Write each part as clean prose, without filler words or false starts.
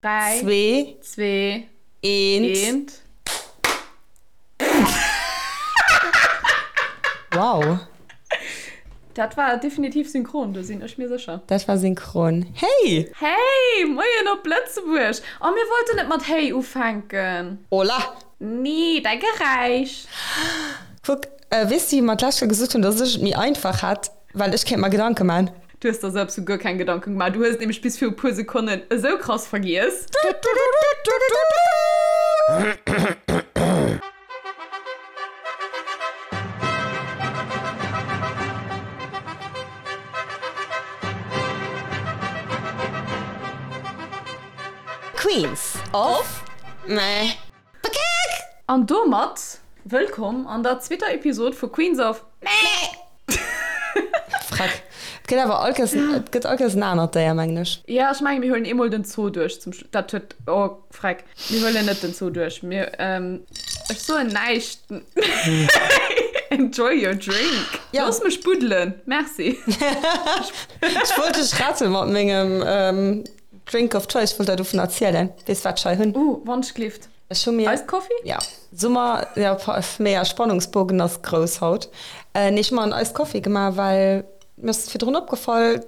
3, 2, 2, 1. 1. Wow. Dat war definitiv synchron, do sinn ech mir sécher. Dat war synchron. Hey! Hey! Moien op Lëtzebuerg! Oh, mir wollten net mat Hey ufänken. Hola! Nee, däi Geräisch. Kuck, weess du, wéi mer d'lescht Kéier gesot hunn, dass ech et méi einfach hätt, well ech kéint mer Gedanke man? Du hues der selbst guer keng Gedanken gemaach. Du hues et nämlech bis viru puer Sekonnen esou krass vergiess. Queens of Meh. An domat wëllkomm an der zweeter Episod vu Queens of Meh. Freck. Et gëtt awer all Kéiers, et gëtt all Kéiers en anert Déier, mengen ech. Jo, ech mengen, mir huelen eemol den Zoo duerch zum Schluss. Dat huet, oh, freck. Mir huelen net den Zoo duerch. Mir, ech soen näischt. Enjoy your drink. Ja. Looss mech buddelen. Merci. Ech wollt dech rette mat mengem Drink of choice, ech wollt der dovun erzielen. Weess wat ech hei hunn? Uh, Wandschlift. Ech hu mir. Iced Coffee? Ja. Summer, ja, mega Spannungsbogen ass grouss haut. Nee, ech hu mer en Iced Coffee gemaach, well mir ass virdrun opgefall,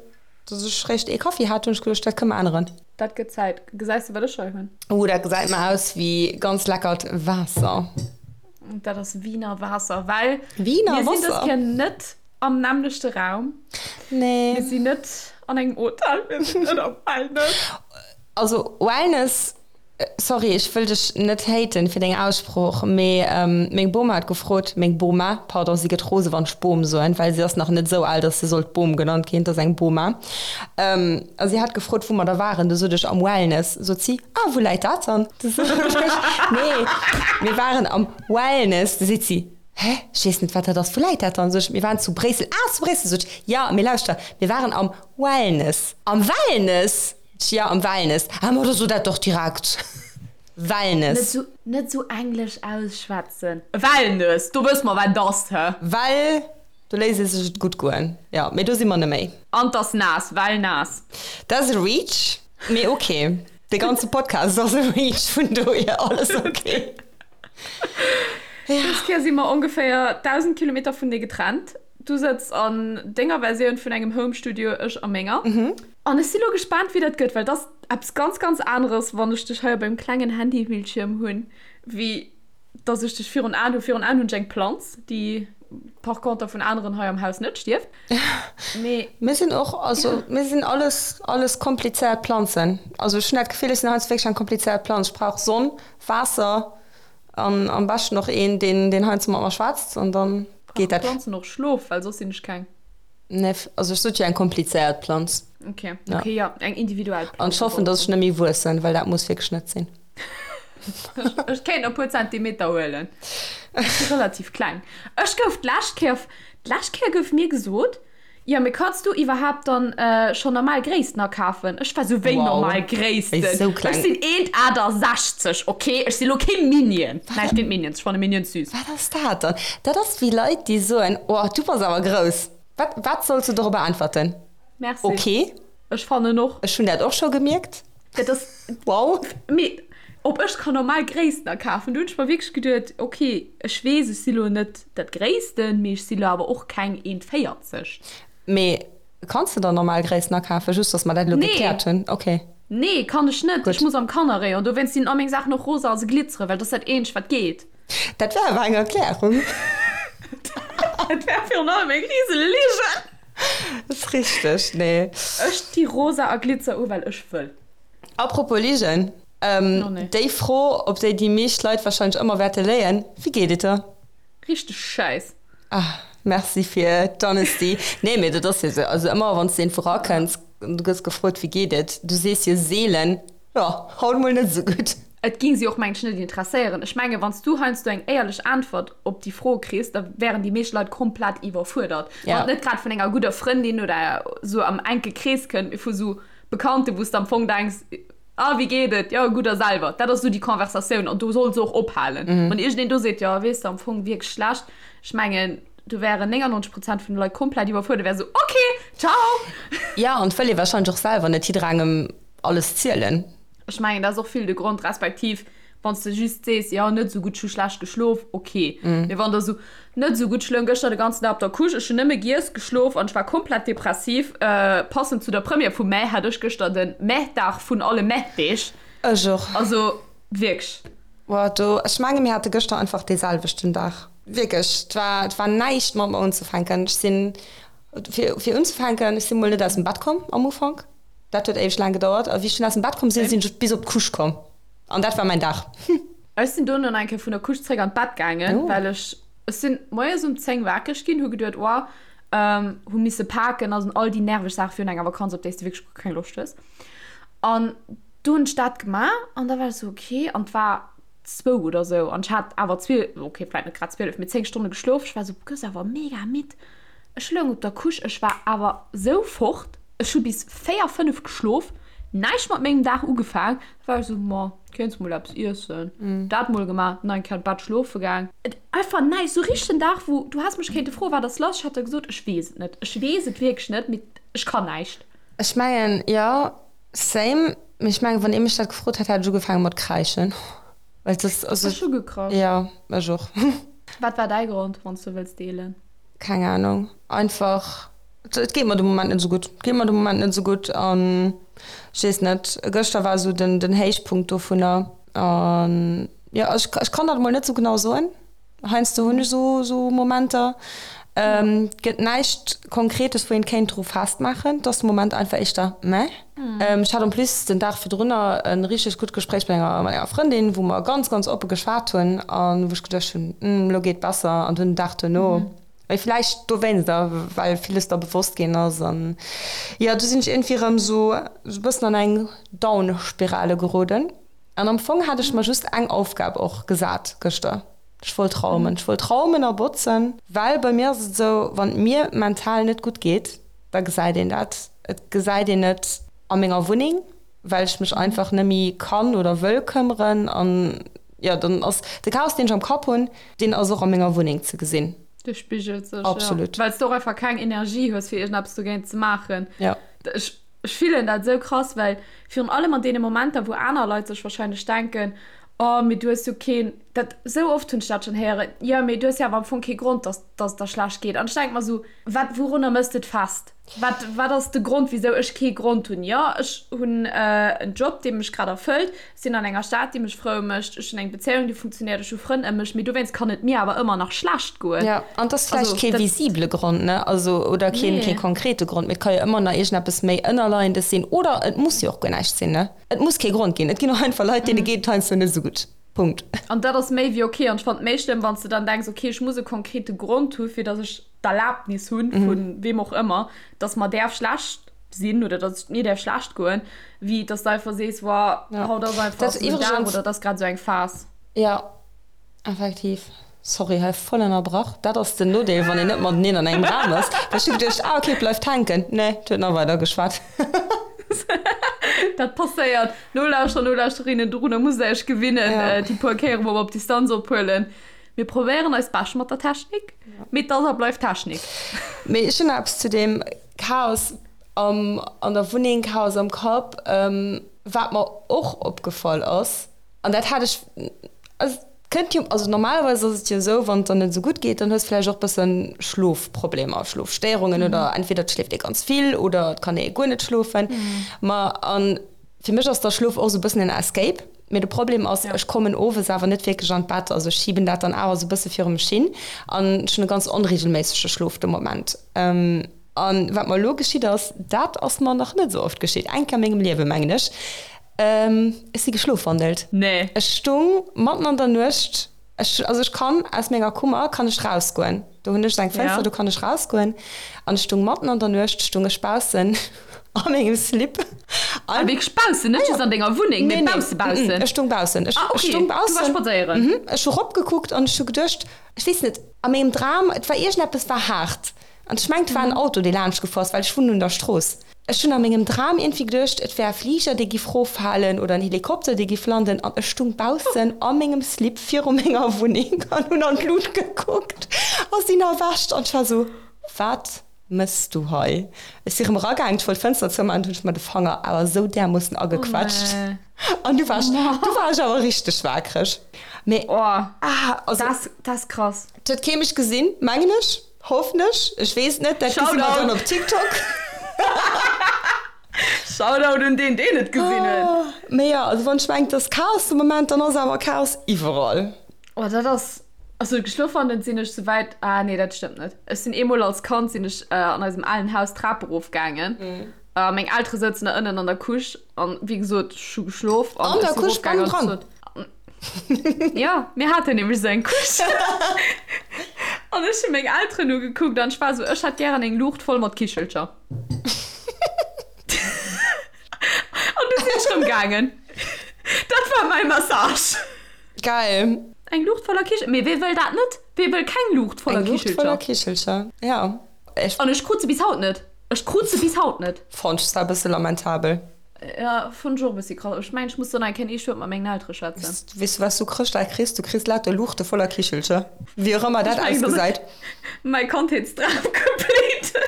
dass ech réischt ee Kaffi hat. Hunn ech geduecht, dat kënne mer änneren. Dat gëtt Zäit. Gesäis de, wat ech hei hunn? Uh, dat gesäit mer aus wéi ganz leckert Waasser. Dat ass Wiener Waasser, well Wiener mir sinn dës Wasser? Kéier net am nämmlechte Raum. Nee. Mir sinn net an engem Hotel, mir sinn net am Wellness. Also Wellness, sorry, ech wëll dech net haten fir deng Aussprooch, mee meng Boma huet gefrot, meng Boma, pardon, si gëtt rose wann ech Bom soen, well si ass nach net esou al, datt se sollt Bom genannt ginn, et ass eng Boma, a si hat gefrot, wou mer da waren, du sot ech am Wellness, sot si, ah wou läit dat dann? Du sot ech, nee, mir waren am Wellness, du seet si, Hä? Ech weess net, wat dat ass. Wou läit dat dann? Sot ech, mir waren zu Bréissel. Ah, zu Bréissel, sot ech. Jo, mee lauschter, mir waren am Wellness. Am Wellness? Sot ech, Jo, am Wellness. Ah, ma da so dat doch direkt. Net Wellness. sou, net sou englesch ausschwätzen. Wellness, do wësse mer, wat et ass, hä? Well do léisst ee sech et gutt goen. Jo, mee do si mer neméi. An 't ass naass, well naass. Dat ass e Reach, mee ok. De ganze Podcast ass e Reach, vun dohier alles ok. Dës Kéier si mer ongeféier 1.000 Kilometer vun dir getrennt. Du sëtz an denger Versioun vun engem Home Studio, ech a menger. An ech si lo gespaant, wéi dat gëtt, well et ass eppes ganz, ganz aneres, wann ech dech hei op engem klengen Handybildschierm hunn, wéi dass ech dech virun Aen hunn. Virun Aen hunn ech eng Planz, déi par conter vun aneren hei am Haus net stierft. Mee. Mir sinn och, also mir sinn alles, alles komplizéiert Planzen. Also ech hunn dat Gefill, ech sinn heiansdo wierklech eng komplizéiert Planz. Ech brauch Sonn, Waasser an am beschten och een, deen, deen heiansdo mat mer schwätzt an dann geet dat. Brauchen Planzen och Schlof? Well soss sinn ech keng. Nee, also ech sot jo eng komplizéiert Planz. Okay, okay, ja, eng individuell Planz. An ech hoffen, dass ech net méi wuessen, well dat muss wierklech net sinn. Ech kéint e puer Zentimeter huelen. Ech si relativ kleng. Ech gouf d'lescht Kéier, d'lescht Kéier gouf mir gesot, jo, mee kanns du iwwerhaapt dann schonn normal Gréissten akafen? Ech war sou, wéi normal Gréissten? Ech sinn 1,68, ok? Ech si lo kee Minion. Näischt géint Minions, ech fanne Minions süß. Wat ass dat dann? Dat ass wéi Leit, déi soen, oh, du bass awer grouss. Wat, wat solls du dorobber äntwerten? Merci. Ok. Ech fannen och. Ech hunn dat och scho gemierkt. Dat ass. Wow. Mee ob ech kann normal Gréissten akafen? Do hunn ech mer wierklech geduet, ok, ech weess, ech si lo net dat Gréissten, mee ech si lo awer och keng 1,40. Mee kanns de dann normal Gréissten akafen? Just, dass mer dat elo gekläert hunn. Ok. Nee, kann ech net. Gutt. Ech muss am Kannerrayon. Dowéinst sinn all meng Saachen och rosa a se glitzeren, well dat ass dat eenzegt, wat geet. Dat wär awer eng Erklärung. Dat wär virun allem eng rise Ligen. Ass richteg, nee. Ech di rosa a Glitzer u well ech wëll. Apropos Ligen, Oh nee. déi Fro op déi déi meescht Leit wahrscheinlech ëmmer wäerte léien, Wéi geet et der? Richteg schäiss. Ah, merci fir d'Honesty. Nee, mee dat ass jo esou. Also ëmmer wann s de iergendwou rakënns an du gëss gefrot, wéi geet et, du sees jo seelen, Jo, haut mol net esou gutt. Et ging si och mengen ech net interesséieren. Ech mengen wann s du heiansdo eng éierlech Äntwert op déi Fro kriss, da wären déi meescht Leit komplett iwwerfuerdert. Wann et net grad vun enger gudder Frëndin oder sou am enke Krees kënnt, mee vu sou Bekannten, wou s de am Fong denks, ah wéi geet et, jo gutt a selwer. Dat ass sou déi Conversatioun an do soll se och ophalen. Wann iergendeen do seet, jo weess de am Fong wierklech schlecht, ech mengen do wären 99 Prozent vun de Leit komplett iwwerfuerdert, wäre sou ok, ciao! Jo, an et wëll ee warscheinlech och selwer net jidderengem alles zielen. Ech mengen, dat ass och vill de Grond, respektiv wann s de just sees, jo, net esou gutt, ech hu schlecht geschlof, ok. Mee wann der esou, net esou gutt, ech loung gëschter de ganzen Dag op der Couche, ech hunn nëmme giess, geschlof an ech war komplett depressiv, passend zu der Première vum Mä hat ech gëschter de Mä-Dag vun alle Mä-Deeg. Ech och. Also wierklech. Boah, do, ech menge mir hate gëschter einfach dee selwechten Dag. Wierklech, et war, et war näischt mat mer unzefänken. Ech sinn, fir, fir unzefänken, ech si mol net aus dem Bett komm am Ufank. Dat huet éiweg laang gedauert. A wéi ech dunn aus dem Bett komm sinn, sinn ech bis op d'Couche komm. An dat war mäin Dag. Ech sinn dono nach eng Kéier vun der Couche zréck an d'Bett gaangen, well ech, ech sinn moies um 10 wakereg ginn, hu geduet, oh, hu misse paken a all déi nerveg Saache virun enger Vakanz, op déi s de wierklech guer keng Loscht hues. An do hunn ech dat gemaach an da war ech esou, okay, an et war zwou oder esou an ech hat awer 12, okay, vläicht net grad 12, mee 10 Stonne geschlof. Ech war esou, du gëss awer mega midd. Ech loung op der Couche, ech war awer sou fort, ech hu bis 4, 5 geschlof, näischt mat mengem Dag ugefaang. Da war ech sou, ma kéints mol eppes iessen. Dat mol gemaach, nach eng Kéier an d'Bett schlofe gaang. Et einfach näischt, sou richteg en Dag wou du häss mech kéinte froen, wat ass lass, ech hätt der gesot, ech weess et net, ech weess et wierklech net, mee ech kann näischt. Ech mengen, jo, same, mee ech mengen, wann ee mech dat gefrot hätt, hätt ech ugefaange mat kräischen, well et ass, also. Ech hu gekrasch. Jo, ech och. Wat war däi Grond, wann s du wëlls deelen? Keng Ahnung, einfach et geet mer de Moment net esou gutt, et geet mer de Moment net esou gutt an ech weess net, gëschter war esou den den Héichpunkt dovunner an jo ech ech kann dat emol net esou genau soen, heiansdo hunn ech esou esou Momenter, et gëtt näischt Konkretes wou een kéint dru festmaachen, et ass de Moment einfach éischter meh. Ech hat en plus den Dag virdrunner e richteg gutt Gespréich mat enger mat enger Frëndin, wou mer ganz, ganz oppe geschwat hunn a wou ech geduecht hunn, Hm, elo geet besser. An dunn den Dag duerno, mee vläicht dowéinster, well villes da bewosst ginn ass an jo, du sinn ech iergendwéi erëm esou e bëssen an eng Down-Spirale geroden. An am Fong hat ech mer just eng Aufgab och gesat gëschter, Ech wollt raumen. Ech wollt raumen a botzen, well bei mir ass et esou, wann et mir mental net gutt geet, da gesäit een dat. Et gesäit een et a menger Wunneng, well ech mech einfach net méi kann oder wëll këmmeren. An jo, dann ass de Chaos, deen ech am Kapp hunn, deen ass och a menger Wunneng ze gesinn. Dee spigelt sech, jo. Absolut. Well s de och einfach keng Energie hues, fir iergendeppes dogéint ze maachen. Jo. Ech, ech fillen dat esou krass, well virun allem an deene Momenter, wou aner Leit sech warscheinlech denken, Oh, mee du hues jo keen, dat, esou oft hunn ech dat schonn héieren, jo, mee du hues jo awer am Fong kee Grond, dass, dass et der schlecht geet. An ech denke mer esou, Wat, wourunner mëss de et fest? Wat, wat ass de Grond, wisou ech kee Grond hunn? Jo, ech hunn en Job, dee mech grad erfëllt, ech sinn an enger Stad, déi mech frou mécht, ech hunn eng Bezéiung, déi funktionéiert, ech hu Frënn ëm mech, mee dowéinst kann et mir awer ëmmer nach schlecht goen. Jo, an et ass vläicht kee visibele Grond, ne, also, oder keen, kee konkrete Grond, mee et ka jo ëmmer nach iergendeppes méi Ënnerleiendes sinn, oder et muss jo och guer näischt sinn, ne? Et muss kee Grond ginn. Et ginn och einfach Leit, deene geet et heiansdo net esou gutt. Punkt. An dat ass méi wéi ok. An ech fannen et méi schlëmm, wann s de dann denks, ok, ech muss e konkrete Grond hu fir datt ech d'Erlaabnis hunn, vu weem och ëmmer, datt mer däerf schlecht sinn oder datt et mir däerf schlecht goen, wéi datt s de einfach sees, Woah, haut ass einfach esou en Dag oder et ass grad esou eng Phas. Jo. Effektiv. Sorry, hei voll ënnerbrach. Dat ass den Nodeel, wann een net mateneen an engem Raum ass. Well ech hu geduecht, ah ok, bleift hänken. Nee, et huet nach weider geschwat. Dat passéiert. Nolauschterer, Nolauschterinnen, dorunner musst der iech gewinnen, ja. Déi puer Kéiere wou mer op Distanz ophuelen. Mir probéieren eist Bescht mat der Technik, mee et ass a bleift Technik. Mee ech hunn nach eppes zu deem Chaos am, an der Wunneng, Chaos am Kapp, wat mer och opgefall ass, An dat hat ech, also et kënnt jo, also normalerweis ass et jo esou, wann et der net esou gutt geet, dann hues vläicht och bëssen Schlofproblemer, Schlofstéierungen oder entweder et schléift ee ganz vill oder et kann ee guer net schlofen. Ma a fir mech ass da Schlof och esou e bëssen en Escape. Mee de Problem ass, ech kommen owes awer net wierklech an d'Bett, also ech schiben dat dann awer esou e bësse viru mech hin an ech hunn e ganz onreegelméissege Schlof de Moment. An wat mer elo geschitt ass, dat ass mer nach net esou oft geschitt, eng Kéier a mengem Liewe mengen ech, Ech si geschlofwandelt. Nee. Ech stung matten an der Nuecht, ech, also ech kann aus menger Kummer kann ech rausgoen, do hunn ech eng Fënster, ja. Do kann ech rausgoen an ech stung matten an der Nuecht stung ech baussen a mengem Slip. Ah, wierklech baussen, net just an denger Wunneng, mee bausse baussen? Ech stung baussen. Ech, ah, okay. Ech stung baussen. Du war spadséieren? Mhm. Ech hu ropgekuckt an ech hu geduecht, ech weess net, a mengem Dram, et war iergendeppes war haart an ech mengt, et war en Auto, dee laanscht gefuer ass, well ech wunnen un der Strooss. Ech hunn a mengem Dram iergendwéi geduecht, et wär e Fliger, dee giff roffalen oder en Helikopter, dee giff landen an ech stung baussen a mengem Slip viru menger Wunneng an hunn an d'Lut gekuckt a sinn erwächt an ech war esou, Wat mëss du hei? Ech si rëm eragaang, ech wollt d'Fënster zoumaachen, dunn hunn ech mer de Fanger awer esou därmoossen agequetscht. An du war ech, du war ech awer richteg waakreg. Mee, Oh, ah, also, dat, dat ass krass. Et huet kee mech gesinn, mengen ech, hoffen ech, ech weess et net, dat gesi mer dann op TikTok. Shoutout un deen, deen et gesinn huet. Mee jo, also wann ech mengen, et ass Chaos de Moment, dann ass awer Chaos iwwerall. Oh, dat ass, also geschlof an sinn ech souwäit, ah nee, dat stëmmt net. Ech sinn eemol als Kand sinn ech an eisem alen Haus d'Trap erof gaangen. A meng Eltere souzen da ënnen an der Couche an wéi gesot, ech hu geschlof an ech sinn erofgaangen an ech sot, Jo, mir haten nämlech esou eng Couche. An ech hu meng Elteren ugekuckt an ech war esou, ech hätt gären eng Luucht voll mat Kichelcher. An du sinn ech rëm gaangen. Dat war mäi Massage. Geil. Eng Luucht voller Kichelcher. Mee wee wëll dat net? Wee wëll keng Luucht voller Kichelcher? Eng Luucht voller Kichelcher, ja. Ech. An ech krut se bis haut net. Ech krut se bis haut net. Fonnt ech zwar e bësse lamentabel. Ja, fonnt ech och e bëssi krass. Ech mengen, ech muss do nach eng Kéier eescht Wuert mat mengen Eltere schwätzen. Weess du, wat s du Chrëschtdag kriss? Du kriss lauter Luuchte voller Kichelcher. Wéi och ëmmer dat ausgesäit. Mäi Kandheetsdram complete.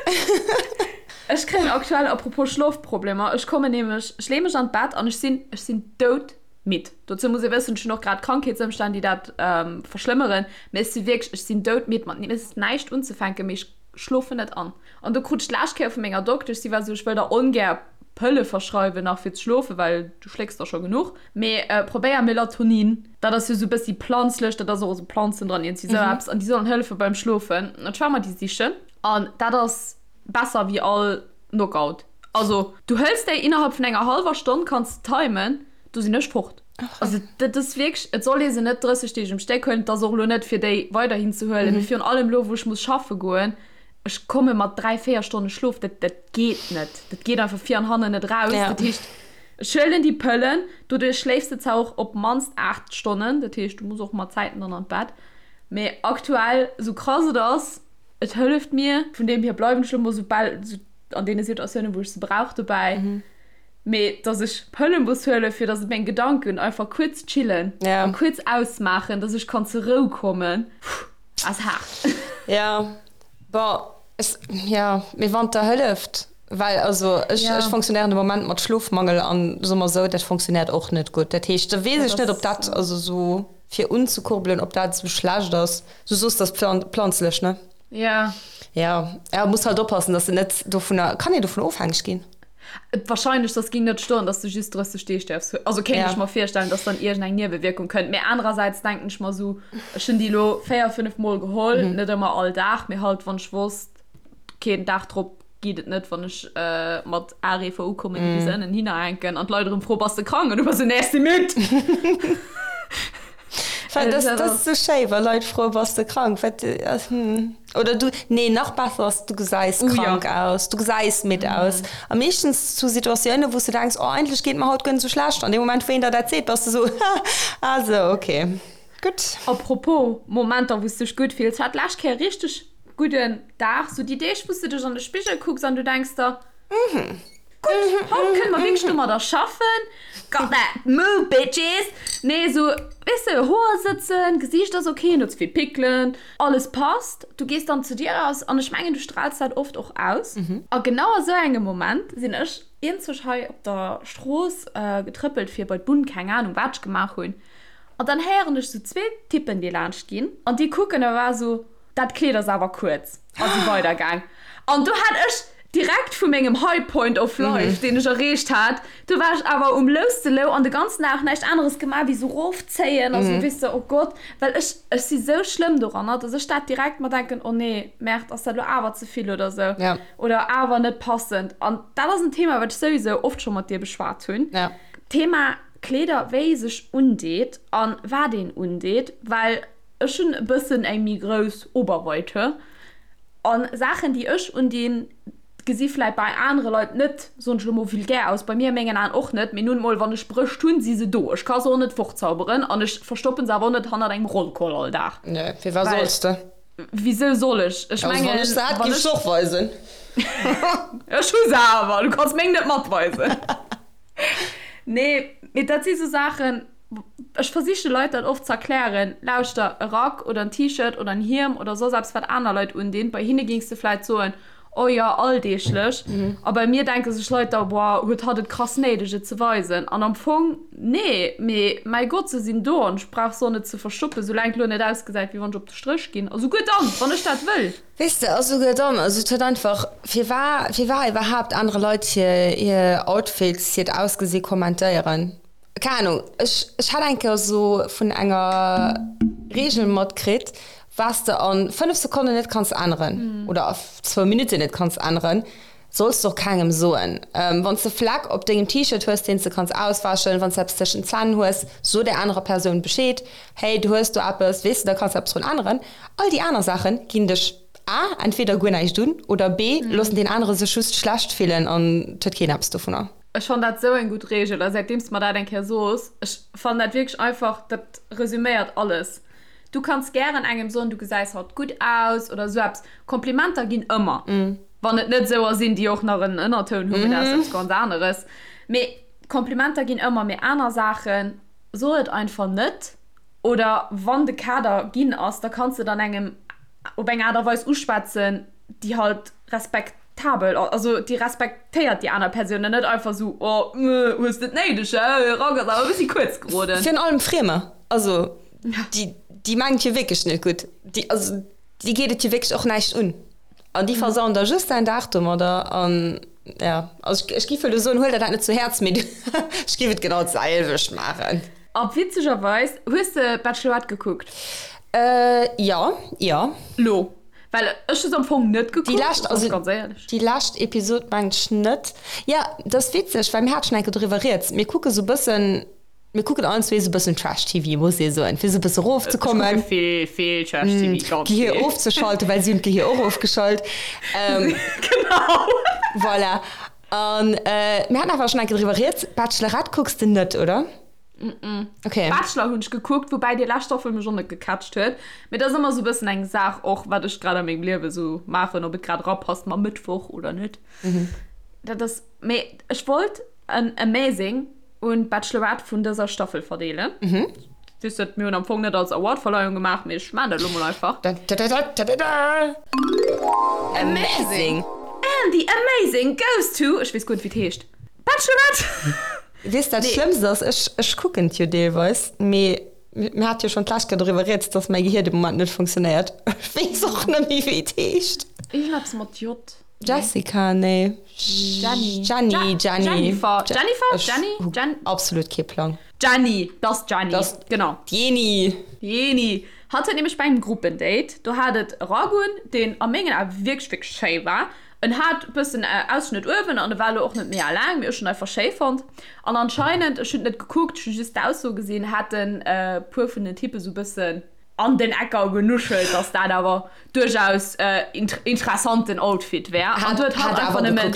Ech kréien aktuell, apropos Schlofproblemer, ech kommen nämlech, ech leeë mech an d'Bett an ech sinn, ech sinn doudmidd. Dozou muss ee wëssen, ech hunn och grad Krankheetsëmstänn, déi dat verschlëmmeren, mee ech si wierklech, ech sinn doudmidd, mat mir ass näischt unzefänken, mee ech schlofen net an. An do krut ech d'lescht Kéier vu menger Doktesch, si war esou, ech wëll der ongär Pëlle verschreiwen nach fir ze schlofen, well du schlécks der scho genuch, mee probéier Melatonin, dat ass jo esou e bëssi planzlech, dat ass och esou Planzen dran, iergendwéi esou eppes, an déi sollen hëllefe beim Schlofen. An ech war mer déi sichen an dat ass besser wéi all Knockout. Also du hëls déi innerhalb vun enger hallwer Stonn, kanns de timen, do sinn ech fort. Also dat ass wierklech, et soll ee se net 30 Deeg um Stéck huelen, et ass och elo net fir déi weiderhin ze huelen, mee virun allem elo wou ech muss schaffe goen, ech komme mat 3, 4 Stonne Schlof, dat dat geet net, dat geet einfach vir an hannen net raus. Dat heescht, ech huelen déi Pëllen, doduerch schléifs de zwar och op d'mannst 8 Stonnen, dat heescht du muss och mat Zäiten dann an d'Bett, mee aktuell, esou krass et ass, et hëlleft mir, vun deem hier bleiwen ech elo mol soubal an deene Situatiounen wou ech se brauch dobäi. Mee dass ech Pëlle muss huelen, fir dass meng Gedanken einfach kuerz chillen a kuerz ausmaachen, dass ech kann zur Rou kommen, ass haart. Jo, bon, ech, jo, mee wann et der hëlleft, well also ech, ech fonctionnéieren de Moment mat Schlofmangel an soe mer esou, dat fonctionnéiert och net gutt. Dat heescht, da weess ech net, ob dat, also esou fir unzekurbelen, ob dat esou schlecht ass. Du soos, dat ass planzlech, ne? Jo. Jo, ja, muss halt oppassen, dass de net dovunner, kann een dovun ofhängeg ginn? Wahrscheinlech, dass ging net stoen, dass du just 30 Deeg däerfs huelen. Also kéint ech mer virstellen, dass dann iergend eng Niewewierkung kënnt. Mee anerersäits denken ech mer sou, ech hunn déi elo 4, 5 Mol geholl, net ëmmer all Dag, mee halt wann ech wosst, okay, den Dag drop geet et net, wann ech mat Areefer ukommen, déi bis ënnen hinner hänken an d'Leit erëm froen, bass de krank? An du bass sou, nee, ech si midd. Well dat ass sou schéi, wa Leit froen, bass de krank? Wat, hm. Oder du, nee, nach besser ass, du gesäis krank aus, du gesäis midd aus. A meeschtens zu Situatiounen, wou s du denks, oh, eigentlech geet et mer haut guer net sou schlecht. An deem Moment, wou een der dat seet, bass du sou, ha, ah sou, okay, gutt. A propos Momenter, wou s dech gutt fills, hat d'lescht Kéier richteg gudden Dag, sou déi Deeg, wou s du dech an de Spigel kucks an du denks der, Gutt, haut kënne mer wierklech domadder schaffen. Got that move, bitches! Nee, esou, weess de, Hoer sëtzen, Gesiicht ass ok, net ze vill Pickelen, alles passt. Du gees dann zu dir eraus an ech mengen, du straals dat oft och aus. A genau a sou engem Moment sinn ech eenzeg hei op der Strooss getrëppelt fir bei d'Bunn, keng Anung, wat ech gemaach hunn. An dann héieren ech sou zwee Typpen, déi laanscht ginn an déi kucken a war esou, Dat Kleed ass awer kuerz. A si weidergaang. An do hat ech direkt vu mengem High Point of Life, deen ech erreecht hat, do war ech awer um louste Lou an de ganzen Dag näischt aneres gemaach wéi sou rofzéien a sou, weess de, oh Gott, well ech, ech si sou schlëmm doranner, dass ech dat direkt mer denken, oh nee, Merde, ass dat elo awer ze vill oder sou oder awer net passend. An dat ass en Thema, wat ech souwisou oft scho mat dir beschwat hunn, Thema Kleeder, wéi ee sech undeet a wat een undeet, well Ech hunn e bëssen eng méi grouss Oberweite an Saachen déi ech undinn gesi vläit bei anere Leit net, soen ech elo mol, vulgär aus, bei mir a mengen Aen och net, mee nun mol wann ech Brëscht hunn, si se do, ech ka se och net fortzauberen an ech verstoppen se awer och net hannert engem Rollkoll all Dag. Nee, firwat solls de? Wisou soll ech? Ech mengen, wann ech se hätt, géif ech se och weisen. Ech hu se awer, du kanns meng net matweisen. Nee, mee dat si sou Saachen, Ech versiche Leit dat oft z'erklären, Lauschter, e Rack oder en T-Shirt oder en Hiem oder soss eppes wat aner Leit undinn, bei hinne géings de vläit soen, Oh jo, alldeeglech. A bei mir denke sech Leit da, Boah, huet hatt et krass néideg, et ze weisen? An am Fong, nee, mee mäi Gott, se sinn do an ech brauch se och net ze verstoppen, soulaang et elo net ausgesäit, wéi wann ech op de Stréch ginn. A souguer dann, wann ech dat wëll. Weess de, a souguer dann, also et huet einfach, firwar, firwar iwwerhaapt anere Leit hir, hir Outfits, hiert Ausgesi kommentéieren? Keng Ahnung, ech, ech hat eng Kéier esou vun enger Reegel matkritt, Wat s de a 5 Sekonnen net kanns änneren oder a zwou Minutten net kanns änneren, solls de och kengem soen. Wann s de Fleck op dengem T-Shirt hues, deen s de kanns auswäschen, wann s de eppes tëschent den Zänn hues, so där anerer Persoun Bescheed, Hey, du hues do eppes, weess de, da kanns de eppes drun änneren. All déi aner Saache ginn dech a entweder guer näischt un oder b loossen deen anere sech just schlecht fillen an et huet keen eppes dovunner. Ech fannen dat esou eng gutt Reegel a säitdeems de mer dat eng Kéier sos, ech fannen dat wierklech einfach, dat resüméiert alles. Du kanns gären engem soen, du gesäis haut gutt aus oder esou eppes. Komplimenter ginn ëmmer, wann et net esouer sinn, déi och nach en Ënnertoun hunn, mee dat ass eppes ganz aneres. Mee Komplimenter ginn ëmmer, mee aner Saachen, so et einfach net. Oder wann de Kader ginn ass, da kanns de et an engem op eng Aart a Weis uschwätzen, déi halt respektabel, also déi respektéiert déi aner Persoun an net einfach esou, oh, hues de et néideg, hä, Rack ass awer e bëssi kuerz geroden. Virun allem Friemer, also Déi, déi mengt jo wierklech net gutt. Déi, also déi geet et jo wierklech och näischt un. An déi versauen der just däin Dag domadder. An ja, also ech, ech giff elo soen, huel der dat net zu Häerz, mee ech giff et genau d'selwecht maachen. A witzegerweis, hues de Bachelorette gekuckt? Äh, jo, jo. Lo? Well ech hu se am Fong net gekuckt, Déi lescht, also ganz éierlech. Déi lescht Episod mengt ech net. Jo, dat ass witzeg, well mir hate schonn eng Kéier doriwwer rieds. Mir kucke sou bëssen. Mir kucken allen zwee sou bëssen Trash-TV, muss ee soen, fir sou bësse rofzekommen. Ech kucke vill, vill Trash-TV, ganz vill. D'Gehier ofzeschalten, well si hunn d'Gehier och ofgeschalt. Genau. Voilà. An mir haten awer schonn eng Kéier driwwer rieds. Bachelorette kucks de net, oder? Mm-mm. Okay. Bachelor hunn ech gekuckt, woubäi déi lescht Staffel mech och net gecatcht huet. Mee dat ass ëmmer sou bëssen eng Saach och, wat ech grad a mengem Liewe sou maachen, ob et grad erapasst mam Mëttwoch oder net. Dat ass, mee ech wollt en Amazing un d'Bachelorette vun dëser Staffel verdeelen. Mhm. Weess dat, mir hunn am Fong net als Awardverleihung gemaach, mee ech maan dat elo mol einfach. Da-da-da-da-da-da! Amazing! And the amazing goes to, ech weess guer net wéi et heescht, Bachelorette! Weess dat Schlëmmst ass, ech, ech kucken et jo deelweis, mee mir hate jo schonn d'lescht Kéier doriwwer rieds, dass mäi Gehier de Moment net funktionéiert. Ech weess och net méi wéi et heescht. Iergendeppes mat J. Jessica, nee. Jenny. Jenny, Jenny. Jennifer, Jennifer, Jenny, Jen. Absolut kee Plang. Jenny, dat ass d'Jenny. Dat genau. D'Jeni. D'Jeni. Hatt huet nämlech bei engem Gruppendate, do hat et e Rack un, deen a mengen Ae wierklech, wierklech schéi war. En hat e bëssen Ausschnëtt uewen an e war elo och net mega laang, mee ech hunn en einfach schéi fonnt. An anscheinend, ech hunn et net gekuckt, ech hu just d'Ausso gesinn, haten e puer vun den Typpe sou e bëssen an den Ecker genuschelt, dass dat awer duerchaus interessanten Outfit wär. An du huet hatt einfach nëmmen.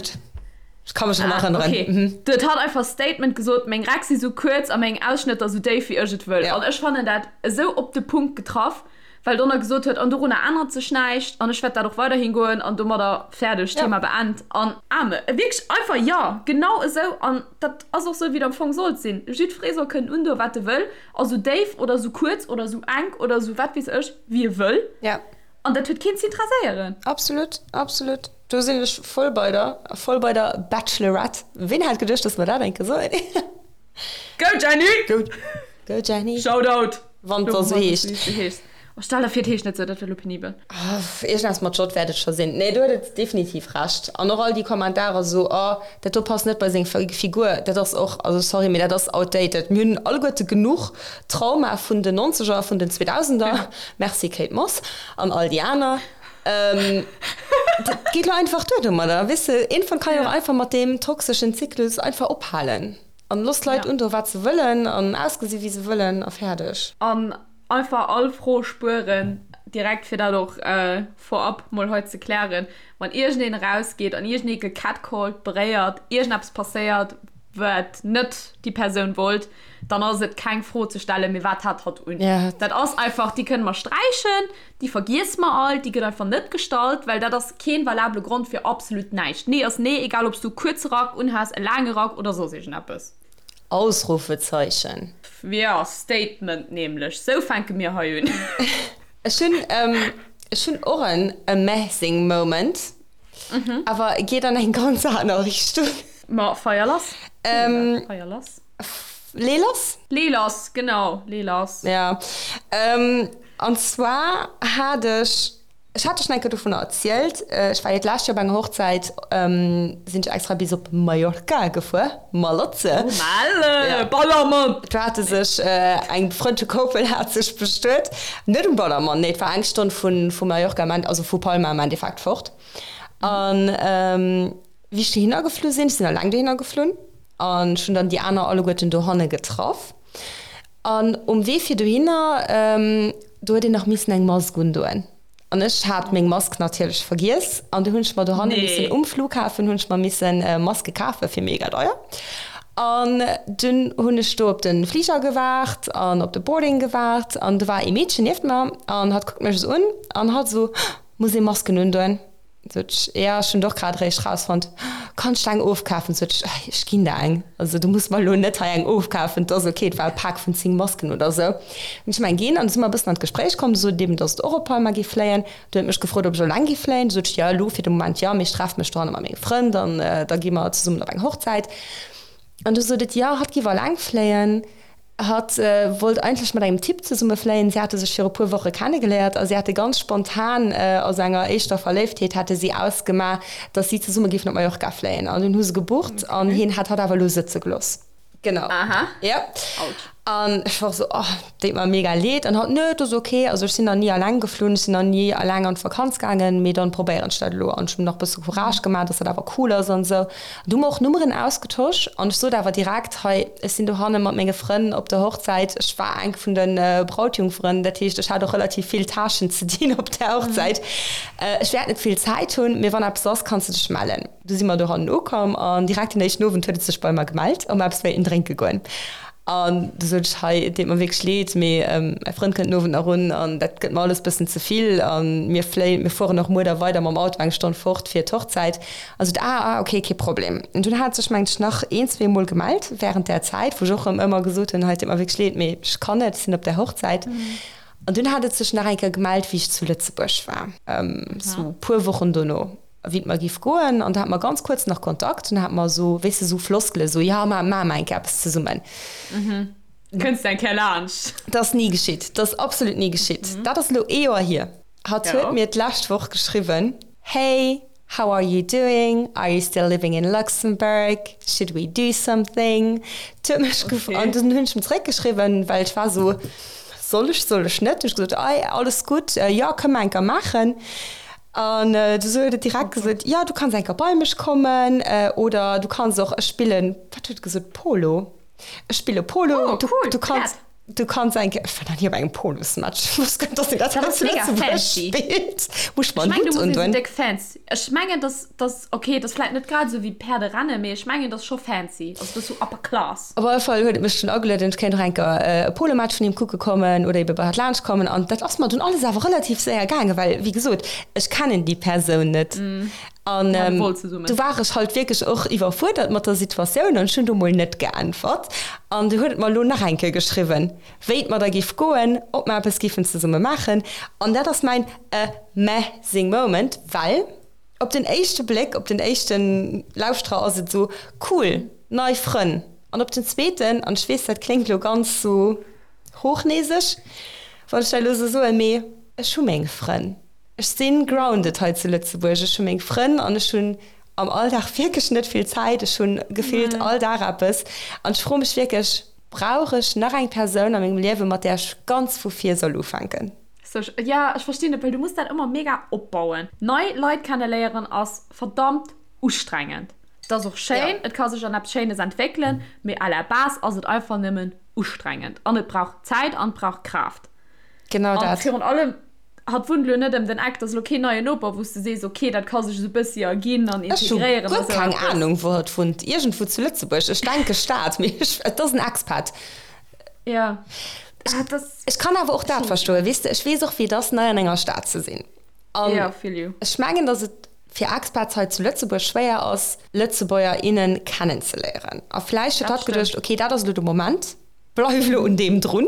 Ech ka mech erëm erënneren. Okay. Du huet hatt einfach Statement gesot, meng Räck si sou kuerz a meng Ausschnëtter sou déif wéi ech et wëll. An ech fannen dat esou op de Punkt getraff, well Donner gesot huet, an dorunner ännert sech näischt an ech wäert dat och weiderhin goen an domadder fäerdeg, Thema beend. An Amen. Wierklech einfach, jo, genau esou. An dat ass och sou, wéi et am Fong sollt sinn. Jiddweree soll kënnen undoen, wat e wëll. A sou déif oder sou kuerz oder sou enk oder sou wat weess ech, wéi e wëll. Ja. An dat huet keen z'interesséieren. Absolut, absolut. Do sinn ech voll bei der, voll bei der Bachelorette. Ween hätt geduecht, dass mer dat eng Kéier soen? Go Jenny! Go, go Jenny! Shoutout! Wann et da sou heescht. Oh, stell der vir, et heescht net sou, dat wär lo penibel. Iergendeppes mat J wäert et scho sinn. Nee, do huet et definitiv Recht. An och all déi Kommentarer sou, oh, dat do passt net bei seng Figur, dat ass och, also sorry, mee dat ass outdated. Mir hunn alleguerte genuch Trauma vun den Nonzeger, vun den Zweedausender, merci Kate Moss an all déi aner. Dat geet lo einfach duer domadder, weess de. Iergendwann kann een och einfach mat deem toxeschen Zyklus einfach ophalen an looss d'Leit undoen, wat se wëllen an ausgesi wéi se wëllen a fäerdeg. An Einfach all Fro spueren, direkt fir dat och vorab mol hei ze klären, wann iergendeen erausgeet an iergendee gecatcalled, beréiert, iergendeppes passéiert, wat net déi Persoun wollt, dann ass et keng Fro ze stellen, mee wat hat hatt un? Dat ass einfach, déi kënne mer sträichen, déi vergiesse mer all, déi gëtt einfach net gestallt, well dat ass keen valabele Grond fir absolut näischt. Nee ass nee, egal ob s du e kuerze Rack unhas, e laange Rack oder soss iergendeppes. Ausrufezeichen. Jo, Statement nämlech. Sou fänke mir hei un. Ech hunn, ech hunn och en amazing moment. Awer geet an eng ganz aner Richtung. Ma feier lass. Ähm, Feier lass. Lee lass? Lee lass, genau, lee lass. Ja. Ähm, an zwar hat ech, ech hat der schon eng Kéier dovunner erzielt, ech war jo d'lescht Joer op enger Hochzäit, ähm, sinn ech extra bis op Mallorca gefuer, Malotze. Oh, Malle, Ja. Ballermann! Do hate sech eng befrënnte Koppel hat sech bestuet, net um Ballermann, nee, et war eng Stonn vu, vu Mallorca am End, also vu Palma am Endeffekt fort. An, ähm, wéi ech dohinner geflu sinn, ech sinn alleng dohinner geflunn, An ech hunn dann déi aner alleguerten dohanne getraff. An um Wee fir dohinner, do huet een nach missen eng Mask undoen. An ech hat meng Mask natierlech vergiess. An du hunn ech mer dohanne missen, um Flughafen hunn ech mer missen Maske kafe fir mega deier. An dunn hunn ech do op de Fliger gewaart an op de Boarding gewaart. An do war ee Meedchen nieft mer an hatt kuckt mech esou un an hatt esou, Muss ee Masken undoen? Sot ech, ja, ech hunn et och grad eréischt rausfonnt. Kanns de eng ofkafen? Sot ech, ech ginn der eng. Also du muss mer elo net hei eng ofkafen, et ass ok. Et war e Pak vun 10 Masken oder esou. Hunn ech em eng ginn an du si mer e bëssen an d'Gespréich komm. Du sot et eben, datt et och op Palma géif fléien. Du huet mech gefrot, ob ech eleng géif fléien. Du sot ech, jo, elo fir de Moment jo, mee ech treffe mech dohanne mat menge Frënn an da gi mer zesummen op eng Hochzäit. An du sot et, jo, hatt géif eleng fléien. Hatt wollt eigentlech mat engem Typ zesumme fléien. Si hate sech viru puer Woche kennegeléiert a si hate ganz spontan, aus enger éischter Verléiftheet, hate si ausgemaach, datt si zesumme géifen op Mallorca fléien. An dunn hu se gebucht an hien hat hatt awer elo sëtze gelooss. Genau. Aha. Ja. Autsch. An ech war esou, oh, deet mer mega leed. An hatt, Nö, et ass ok. Also ech sinn nach ni alleng geflunn, ech sinn nach ni alleng an d'Vakanz gaangen, mee dann probéieren ech dat elo. An ech hunn nach e bësse Courage gemaach, datt dat awer cool ass an esou. Du hu mer och Nummeren ausgetosch an ech sot awer direkt, hei, ech sinn dohanne mat menge Frënn op der Hochzäit. Ech war eng vun de Brautjungferen, dat heescht, ech hat och relativ vill Tâchen ze dinn op där Hochzäit. Ech wäert net vill Zäit hunn, mee wann eppes ass, kanns de dech mellen. Du si mer dohannen ukomm an direkt den éischten Owend huet et sech bei mer gemellt, ob mer eppes wéilten drénke goen. An du sot ech, hei, et deet mer wierklech leed, mee mäi Frënd kënnt den Owend nach un an dat gëtt mer alles bëssen ze vill a mir fléien, mir fueren och muer da weider mam Auto eng Stonn fort fir d'Hochzäit. A sot, ah, ah, okay, kee Problem. An dunn hat sech, mengt ech, nach een, zweemol gemellt wärend där Zäit, wou ech och erëm ëmmer gesot hunn, hei, et deet mer wierklech leed, mee ech kann net, ech sinn op där Hochzäit. An dunn hat et sech nach eng Kéier gemellt, wéi ech zu Lëtzebuerg war, sou puer Wochen dono. Wéi et mer giff goen, an do hate mer ganz kuerz nach Kontakt, dunn hate mer esou, weess de, esou Floskele, esou, jo, ma maache mer eng Kéier eppes zesummen. Kënns de eng Kéier laanscht? Dat ass ni geschitt, dat ass absolut ni geschitt. Dat ass elo ee Joer hier. Hatt huet mir d'lescht Woch geschriwwen, Hey, how are you doing? Are you still living in Luxembourg? Should we do something? Et huet mech gef, an dunn hunn ech em zeréckgeschriwwen, well ech war esou, Soll ech, soll ech net? Hunn ech gesot, Ei, alles gutt, jo, kënne mer eng Kéier maachen. An du huet et direkt gesot, jo, du kanns eng Kéier bei mech kommen oder du kanns och, ech spillen, wat huet et gesot, Polo, ech spille Polo, Oh, du, cool, du kanns, Pferd. du kanns eng Kéier, ech war nach ni op engem Polosmatch, ech wosst guer net, dass een dat Dat hei ass zu mega Lëtzebuerg fancy. spillt. Muss ech mer Ech en mengen, du Hutt muss ee sou undoen? déck fancy, ech mengen, dass, dass, okay, dat ass vläit net grad esou wéi Päerderennen, mee ech mengen, dat ass scho fancy, also dat ass sou upper class. Op alle Fall huet et mech dunn agelueden, ech kéint och eng Kéier e Polomatch vun him kucke kommen oder ebe bei hatt laanscht kommen. An dat ass mer dunn alles awer relativ séier gaangen, well, wéi gesot, ech kennen déi Persoun net. An du war ech halt wierklech och iwwerfuerdert mat der Situatioun an ech hunn do mol net geäntwert. An du huet et mer elo nach eng Kéier geschriwwen, wéi et mer da géif goen, ob mer eppes géifen zesumme maachen. An dat ass mäin amazing moment, well op den éischte Bléck, op den éischten Lauschterer ass et esou, cool, Nei Frënn. An op den zweeten, an ech weess, dat kléngt elo ganz sou hochnäseg, wann ech dat elo sou soen, mee ech hu meng Frënn. Ech si grounded hei zu Lëtzebuerg. Ech hu meng Frënn an ech hunn am Alldag wierklech net vill Zäit. Ech hu gefillt all Dag eppes. An ech froe mech wierklech, Brauch ech nach eng Persoun a mengem Liewen, mat där ech ganz vu vir soll ufänken? So, ja, ech verstinn et, well du muss dat ëmmer mega opbauen. Nei Leit kenneléieren ass verdammt ustrengend. Et ass och schéin, et ka sech an eppes Schéines entwéckelen, mee à la base ass et einfach nëmmen ustrengend an et brauch Zäit an et brauch Kraaft. Genau An dat. virun allem, hatt wunnt elo net ëm den Eck, et ass elo keen neien Noper, wou s de sees, ok, dat ka sech esou e bëssi erginn an Ech hu integréieren a guer sou keng eppes. Anung, wou hatt wunnt. Iergendwou zu Lëtzebuerg. Ech denke Stad, mee ech, et ass en Expat. Ja, ah, dat ass. Ech kann awer och dat verstoen, weess de. Ech weess och, wéi et ass, nei an enger Stad ze sinn. An Ja, feel you. ech mengen, datt et fir Expats hei zu Lëtzebuerg schwéier ass, Lëtzebuerger, innen kennenzeléieren. A vläicht huet Dat hatt geduecht, stëmmt. okay, dat ass elo de Moment, bleif elo un deem drun.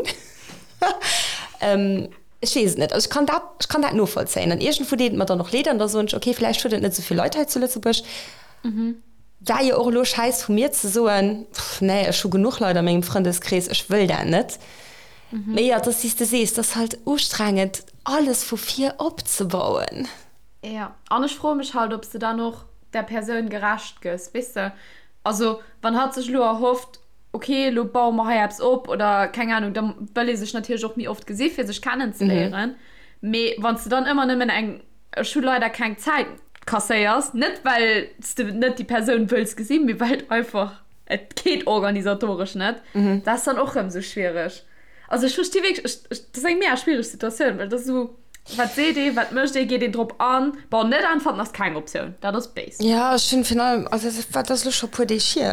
Ech weess et net. Also ech kann dat, ech kann dat novollzéien. An iergendwou deet et mer dann och leed an da soen ech, okay, vläicht huet et net esou vill Leit hei zu Lëtzebuerg. War jo och elo schäiss vu mir ze soen, pff, nee, ech hu genuch Leit a mengem Frëndeskrees, ech wëll dat net. Mee jo, et ass wéi s de sees, et ass halt ustrengend, alles vu vir opzebauen. Jo, an ech froe mech halt, ob s de dann och där Persoun gerecht gëss, weess de? Also wann hatt sech elo erhofft, ok, elo baue mer hei eppes op oder keng Anung, da wëll ee sech natierlech och méi oft gesi fir sech kennenzeléieren. Mee wann s de dann ëmmer nëmmen eng Ech hu leider keng Zäit kasséiers, net well s de net déi Persoun wëlls gesinn, mee well et einfach, et geet organisatoresch net, dat ass dann och rëm esou schwiereg. Also ech versti wierklech, ech, ech, dat ass eng mega schwiereg Situatioun, well dat ass esou, wat seet ee, wat mécht ee, geet een drop an? Bon, net äntwerten ass keng Optioun, dat ass béis. Ja, ech hunn virun allem, also dat ass elo scho e puer Deeg hier,